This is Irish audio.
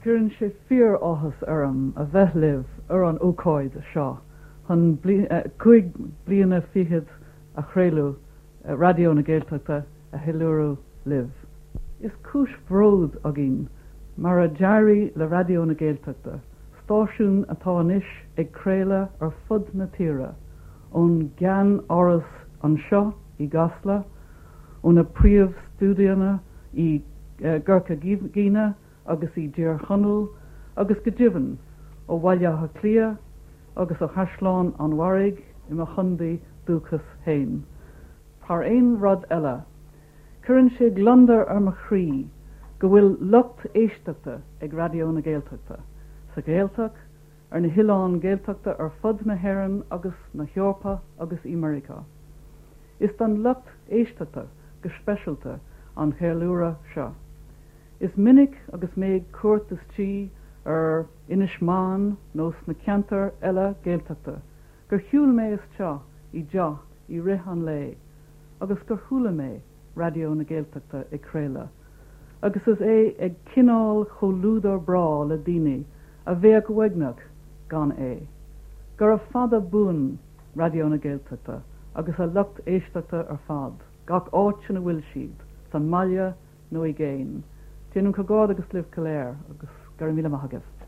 Cuireann sé fíor-áthas orm a bheith libh ar an ócáid seo chun 25 bliana a chraoladh Raidió na Gaeltachta a cheiliúradh libh. Is cúis bhróid againn mar a d'éirigh le Raidió na Gaeltachta, stáisiún atá anois ag craoladh ar fud na tíre, ón gceann-áras anseo i gCasla, ó na príomh-stiúideonna i gCorca Dhuibhne agus i dTír Chonaill agus go deimhin ó Bhaile Átha Cliath agus ó Chaisleán an Bharraigh i mo chontae dúchais féin. Thar aon rud eile, cuireann sé gliondar ar mo chroí go bhfuil lucht éisteachta ag Raidió na Gaeltachta, sa Ghaeltacht, ar na hoileáin Ghaeltachta ar fud na hÉireann agus na hEorpa agus i Meiriceá. Is don lucht éisteachta go speisialta an cheiliúradh seo. Is minic agus mé ag cuairt istigh ar Inis Meáin nó sna ceantair eile Gaeltachta gur shiúil mé isteach i dteach i rith an lae agus gur chuala mé Raidió na Gaeltachta ag craoladh agus is é ag coinneáil comhluadar breá le daoine a bheadh uaigneach gan é. Gura fada buan Raidió na Gaeltachta agus a lucht éisteachta ar fad, gach áit ina bhfuil siad, sa mbaile nó i gcéin. Déanaim comhghairdeas libh go léir agus go raibh míle maith agaibh.